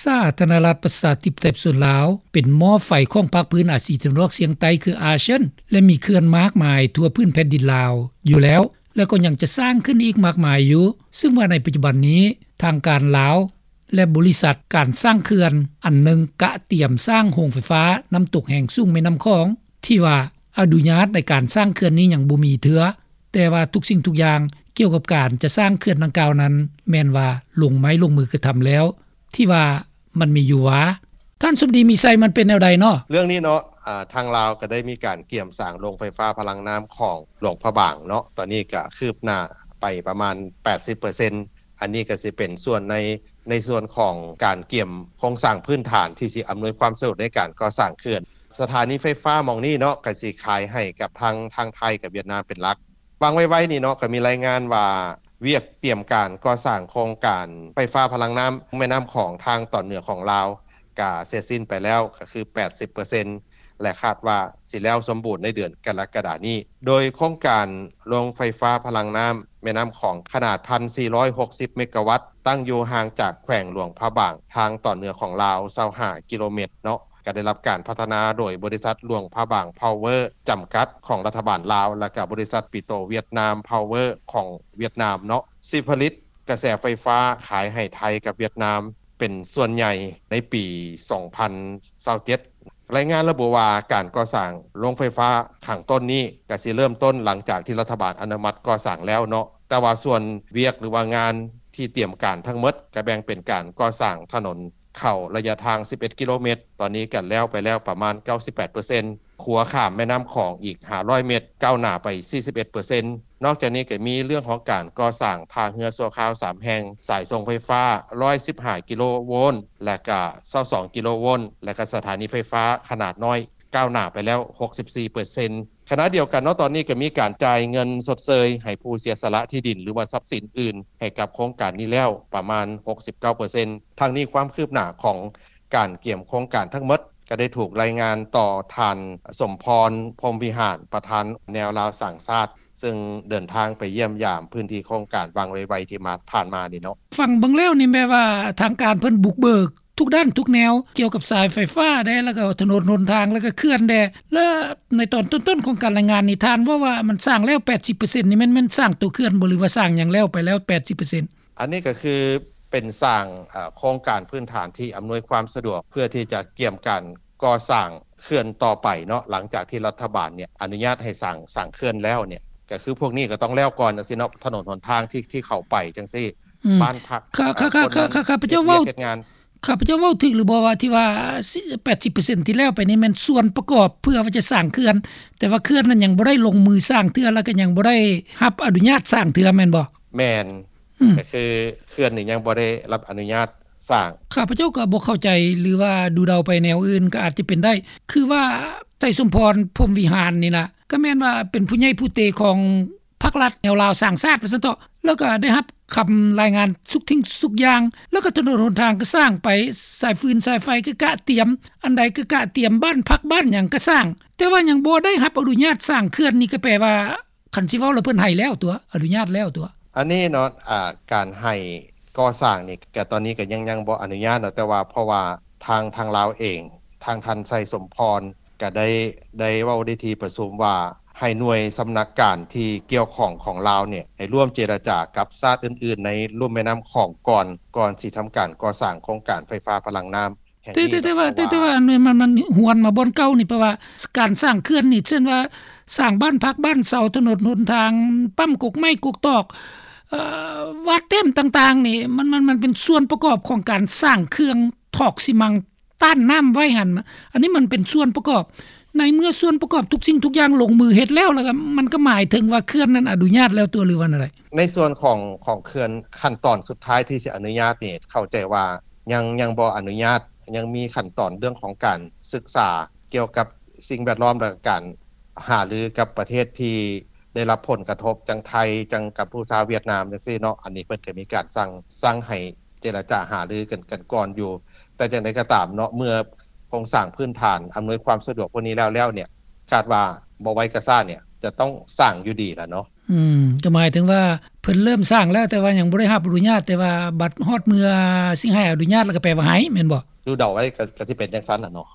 ສາທາລະນະລັດ ປະຊາທິປະໄຕ ປະຊາຊົນລາວ ເປັນໝໍ້ໄຟຂອງພາກພື້ນອາຊີຕາເວັນອອກສ່ຽງໃຕ້ ຄືອາເຊຍນ ແລະ ມີເຂື່ອນມາກມາຍທົ່ວພື້ນແຜ່ນດິນລາວຢູ່ແລ້ວ ແລະ ກໍຍັງຈະສ້າງຂຶ້ນອີກມາກມາຍຢູ່, ເຊິ່ງວ່າໃນປັດຈຸບັນນີ້ ທາງການລາວ ແລະ ບໍລິສັດການສ້າງເຂື່ອນອັນໜຶ່ງ ກະຕຽມສ້າງໂຮງໄຟຟ້ານ້ຳຕົກແຮງສູງແມ່ນ້ຳຂອງ ທີ່ວ່າອະນຸຍາດໃນການສ້າງເຂື່ອນນີ້ຍັງບໍ່ມີເທື່ອ, ແຕ່ວ່າທຸກສິ່ງທຸກຢ່າງກ່ຽວກັບການຈະສ້າງເຂື່ອນດັ່ງກ່າວນັ້ນ ແມ່ນວ່າລົງໄມ້ລົງມືກະທຳແລ້ວ, ທີ່ວ່າມັນມີຢູ່ຫວາ? ທ່ານສົມດີ ມີໄຊ ມັນເປັນແນວໃດເນາະ? ເລື່ອງນີ້ເນາະ ອາ ທາງລາວກໍໄດ້ມີການກຽມສ້າງໂຮງໄຟຟ້າພະລັງນ້ຳຂອງຫຼວງພະບາງເນາະ, ຕອນນີ້ກໍຄືບໜ້າໄປປະມານແປດສິບເປີເຊັນ. ອັນນີ້ກໍຊິເປັນສ່ວນໃນ ໃນສ່ວນຂອງການກຽມໂຄງສ້າງພື້ນຖານທີ່ຊິອຳນວຍຄວາມສະດວກໃນການກໍ່ສ້າງເຂື່ອນ. ສະຖານີໄຟຟ້າໝ່ອງນີ້ເນາະ ກໍຊິຂາຍໃຫ້ກັບທາງ ທາງໄທກັບຫວຽດນາມເປັນຫຼັກ. ຫວ່າງໄວໆນີ້ເນາະ ກໍມີລາຍງານວ່າ ວຽກຕຽມການກໍ່ສ້າງໂຄງການໄຟຟ້າພະລັງນ້ຳແມ່ນ້ຳຂອງທາງຕອນເໜືອຂອງລາວ ກະເສັດສິ້ນໄປແລ້ວ ກໍຄືແປດສິບເປີເຊັນ ແລະ ຄາດວ່າຊິແລ້ວສົມບູນໃນເດືອນກໍລະກະດານີ້. ໂດຍໂຄງການໂຮງໄຟຟ້າພະລັງນ້ຳແມ່ນ້ຳຂອງຂະໜາດໜຶ່ງພັນສີ່ຮ້ອຍຫົກສິບເມກາວັດ ຕັ້ງຢູ່ຫ່າງຈາກແຂວງຫຼວງພະບາງ ທາງຕອນເໜືອຂອງລາວ ຊາວຫ້າກິໂລແມັດເນາະ, ກໍໄດ້ຮັບການພັດທະນາໂດຍບໍລິສັດຫຼວງພະບາງພາວເວີຈຳກັດຂອງລັດຖະບານລາວ ແລະ ກໍບໍລິສັດປີໂຕຫວຽດນາມພາວເວີຂອງຫວຽດນາມເນາະ, ຊິຜະລິດກະແສໄຟຟ້າຂາຍໃຫ້ໄທກັບຫວຽດນາມເປັນສ່ວນໃຫຍ່ໃນປີສອງພັນຊາວເຈັດ. ລາຍງານລະບຸວ່າ ການກໍ່ສ້າງໂຮງໄຟຟ້າຂ້າງຕົ້ນນີ້ ກະຊິເລີ່ມຕົ້ນຫຼັງຈາກທີ່ລັດຖະບານອະນຸມັດກໍ່ສ້າງແລ້ວເນາະ, ແຕ່ວ່າສ່ວນວຽກ ຫຼືວ່າງານທີ່ຕຽມການທັງໝົດ ກະແບ່ງເປັນການກໍ່ສ້າງຖະໜົນເຂົ້າໄລຍະທາງສິບເອັດກິໂລແມັດ, ຕອນນີ້ກະແລ້ວໄປແລ້ວປະມານເກົ້າສິບແປດເປີເຊັນ, ຂົວຂ້າມແມ່ນ້ຳຂອງອີກຫ້າຮ້ອຍແມັດ ກ້າວໜ້າໄປສີ່ສິບເອັດເປີເຊັນ. ນອກຈາກນີ້ກໍມີເລື່ອງຂອງການກໍ່ສ້າງທ່າເຮືອຊົ່ວຄາວສາມແຫ່ງ, ສາຍສົ່ງໄຟຟ້າຮ້ອຍສິບຫ້າກິໂລໂວນ ແລະກະຊາວສອງກິໂລໂວນ ແລະກະສະຖານີໄຟຟ້າຂະໜາດນ້ອຍ ກ້າວໜ້າໄປແລ້ວຫົກສິບສີ່ເປີເຊັນ. ຂະນະດຽວກັນເນາະ ຕອນນີ້ກໍມີການຈ່າຍເງິນຊົດເຊີຍໃຫ້ຜູ້ເສຍສະຫຼະທີ່ດິນ ຫຼືວ່າຊັບສິນອື່ນໃຫ້ກັບໂຄງການນີ້ແລ້ວປະມານຫົກສິບເກົ້າເປີເຊັນ. ທັງນີ້ຄວາມຄືບໜ້າຂອງການກຽມໂຄງການທັງໝົດ ກໍໄດ້ຖືກລາຍງານຕໍ່ທ່ານ ສົມພອນ ພົມວິຫານ ປະທານແນວລາວສ້າງຊາດ ເຊິ່ງເດີນທາງໄປຢ້ຽມຢາມພື້ນທີ່ໂຄງການຫວ່າງໄວໆທີ່ມາ ຜ່ານມານີ້ເນາະ. ຟັງເບິ່ງແລ້ວນີ້ແມ່ນວ່າທາງການເພິ່ນບຸກເບີກທຸກດ້ານທຸກແນວ ກ່ຽວກັບສາຍໄຟຟ້າແດ່ ແລ້ວກໍຖະໜົນຫົນທາງ ແລ້ວກໍເຂື່ອນແດ່ ແລະໃນຕອນຕົ້ນໆຂອງການລາຍງານນີ້ ທ່ານເວົ້າວ່າມັນສ້າງແລ້ວແປດສິບເປີເຊັນ ນີ້ແມ່ນ ແມ່ນສ້າງໂຕເຂື່ອນບໍ່ ຫຼືວ່າສ້າງຫຍັງແລ້ວໄປແລ້ວແປດສິບເປີເຊັນ? ອັນນີ້ກໍຄືເປັນສ້າງ ເອີ ໂຄງການພື້ນຖານທີ່ອຳນວຍຄວາມສະດວກ ເພື່ອທີ່ຈະກຽມການກໍ່ສ້າງເຂື່ອນຕໍ່ໄປເນາະ ຫຼັງຈາກທີ່ລັດຖະບານເນຍອະນຸຍາດໃຫ້ສ້າງ ສ້າງເຂື່ອນແລ້ວເນຍ ກໍຄືພວກນີ້ກໍຕ້ອງແລ້ວກ່ອນຈັ່ງຊີ້ເນາະ ຖະໜົນຫົນທາງທີ່ ທີ່ເຂົ້າໄປຈັ່ງຊີ້ ອືມ ບ້ານພັກ ຂ້າ ເອີ ຄົນນັ້ນ ຂ້າພະເຈົ້າເວົ້າ ເຮັດວຽກເຮັດງານ ຂ້າພະເຈົ້າເວົ້າຖືກຫຼືບໍ່ວ່າທີ່ວ່າ ແປດສິບເປີເຊັນທີ່ແລ້ວໄປນີ້ແມ່ນສ່ວນປະກອບເພື່ອວ່າຈະສ້າງເຂື່ອນ ແຕ່ວ່າເຂື່ອນນັ້ນຍັງບໍ່ໄດ້ລົງມືສ້າງເທື່ອ ແລ້ວກໍຍັງບໍ່ໄດ້ຮັບອະນຸຍາດສ້າງເທື່ອແມ່ນບໍ່? ແມ່ນ ອືມ ກໍຄືເຂື່ອນນີ້ຍັງບໍ່ໄດ້ຮັບອະນຸຍາດສ້າງ. ຂ້າພະເຈົ້າກໍບໍ່ເຂົ້າໃຈ ຫຼືວ່າດູເດົາໄປແນວອື່ນກໍອາດຈະເປັນໄດ້ ຄືວ່າ ໄຊສົມພອນ ພົມວິຫານນີ້ນະ ກໍແມ່ນວ່າເປັນຜູ້ໃຫຍ່ຜູ້ເຕຂອງພັກລັດແນວລາວສ້າງຊາດວ່າຊັ້ນເຖາະ ແລ້ວກໍໄດ້ຮັບຄຳລາຍງານທຸກສິ່ງທຸກຢ່າງ ແລ້ວກໍຖະໜົນຫົນທາງກໍສ້າງໄປ ສາຍຟືນສາຍໄຟກໍກະຕຽມ ອັນໃດກໍກະຕຽມ ບ້ານພັກບ້ານຫຍັງກໍສ້າງ ແຕ່ວ່າຍັງບໍ່ໄດ້ຮັບອະນຸຍາດສ້າງເຂື່ອນ ນີ້ກໍແປວ່າ ຄັນຊິເວົ້າແລ້ວເພິ່ນໃຫ້ແລ້ວຕົວະ ອະນຸຍາດແລ້ວຕົວະ. ອັນນີ້ເນາະ ອາ ການໃຫ້ກໍ່ສ້າງນີ້ ກະຕອນນີ້ກະຍັງ ຍັງບໍ່ອະນຸຍາດເນາະ ແຕ່ວ່າເພາະວ່າທາງ ທາງລາວເອງ ທາງທ່ານໄຊສົມພອນກະໄດ້ ໄດ້ເວົ້າໃນທີ່ປະຊຸມວ່າ ໃຫ້ໜ່ວຍສຳນັກການທີ່ກ່ຽວຂ້ອງຂອງລາວເນຍ ໃຫ້ຮ່ວມເຈລະຈາກັບຊາດອື່ນໆໃນລຸ່ມແມ່ນ້ຳຂອງກ່ອນ ກ່ອນຊິທຳການກໍ່ສ້າງໂຄງການໄຟຟ້າພະລັງນ້ຳ ແຕ່ ແຕ່ ແຕ່ວ່າ ແຕ່ ແຕ່ວ່າ ອັນນີ້ ມັນ ມັນຫວນມາບ່ອນເກົ່ານີ້ ເພາະວ່າການສ້າງເຂື່ອນນີ້ ເຊັ່ນວ່າ ສ້າງບ້ານພັກບ້ານເຊົາ ຖະໜົນຫົນທາງ ປ້ຳກົກໄມ້ກົກຕອກ ເອີ ວາດແຕ້ມຕ່າງໆນີ້ ມັນ ມັນ ມັນເປັນສ່ວນປະກອບຂອງການສ້າງເຄື່ອງຖອກຊີມັງຕ້ານນ້ຳໄວ້ຫັ້ນ ອັນນີ້ມັນເປັນສ່ວນປະກອບ ໃນເມື່ອສ່ວນປະກອບທຸກສິ່ງທຸກຢ່າງລົງມືເຮັດແລ້ວ ແລ້ວກໍ ມັນກໍໝາຍເຖິງວ່າເຂື່ອນນັ້ນອະນຸຍາດແລ້ວຕົວະ ຫຼືວ່າແນວໃດ? ໃນສ່ວນຂອງ ຂອງເຂື່ອນ ຂັ້ນຕອນສຸດທ້າຍທີ່ຊິອະນຸຍາດນີ້ ເຂົ້າໃຈວ່າ ຍັງ ຍັງບໍ່ອະນຸຍາດ ຍັງມີຂັ້ນຕອນເລື່ອງຂອງການສຶກສາກ່ຽວກັບສິ່ງແວດລ້ອມ ແລະ ການຫາລືກັບປະເທດທີ່ໄດ້ຮັບຜົນກະທົບ ຈັ່ງໄທ ຈັ່ງກັມພູຊາ ຫວຽດນາມ ຈັ່ງຊີ້ເນາະ ອັນນີ້ເພິ່ນກໍມີການສັ່ງ ສັ່ງໃຫ້ເຈລະຈາຫາລືກັນ ກັນກ່ອນຢູ່ ແຕ່ຈັ່ງໃດກໍຕາມເນາະ ເມື່ອໂຄງສ້າງພື້ນຖານອຳນວຍຄວາມສະດວກພວກນີ້ແລ້ວ ແລ້ວເນຍ ຄາດວ່າບໍ່ໄວກໍຊ້າເນຍ ຈະຕ້ອງສ້າງຢູ່ດີລະເນາະ. ອືມ ກໍໝາຍເຖິງວ່າເພິ່ນເລີ່ມສ້າງແລ້ວ ແຕ່ວ່າຍັງບໍ່ໄດ້ຮັບອະນຸຍາດ ແຕ່ວ່າບັດຮອດເມື່ອຊິໃຫ້ອະນຸຍາດແລ້ວກໍແປວ່າໃຫ້ ແມ່ນບໍ່? ດູເດົາໄວ້ກໍ ກໍຊິເປັນຈັ່ງຊັ້ນລະເນາະ.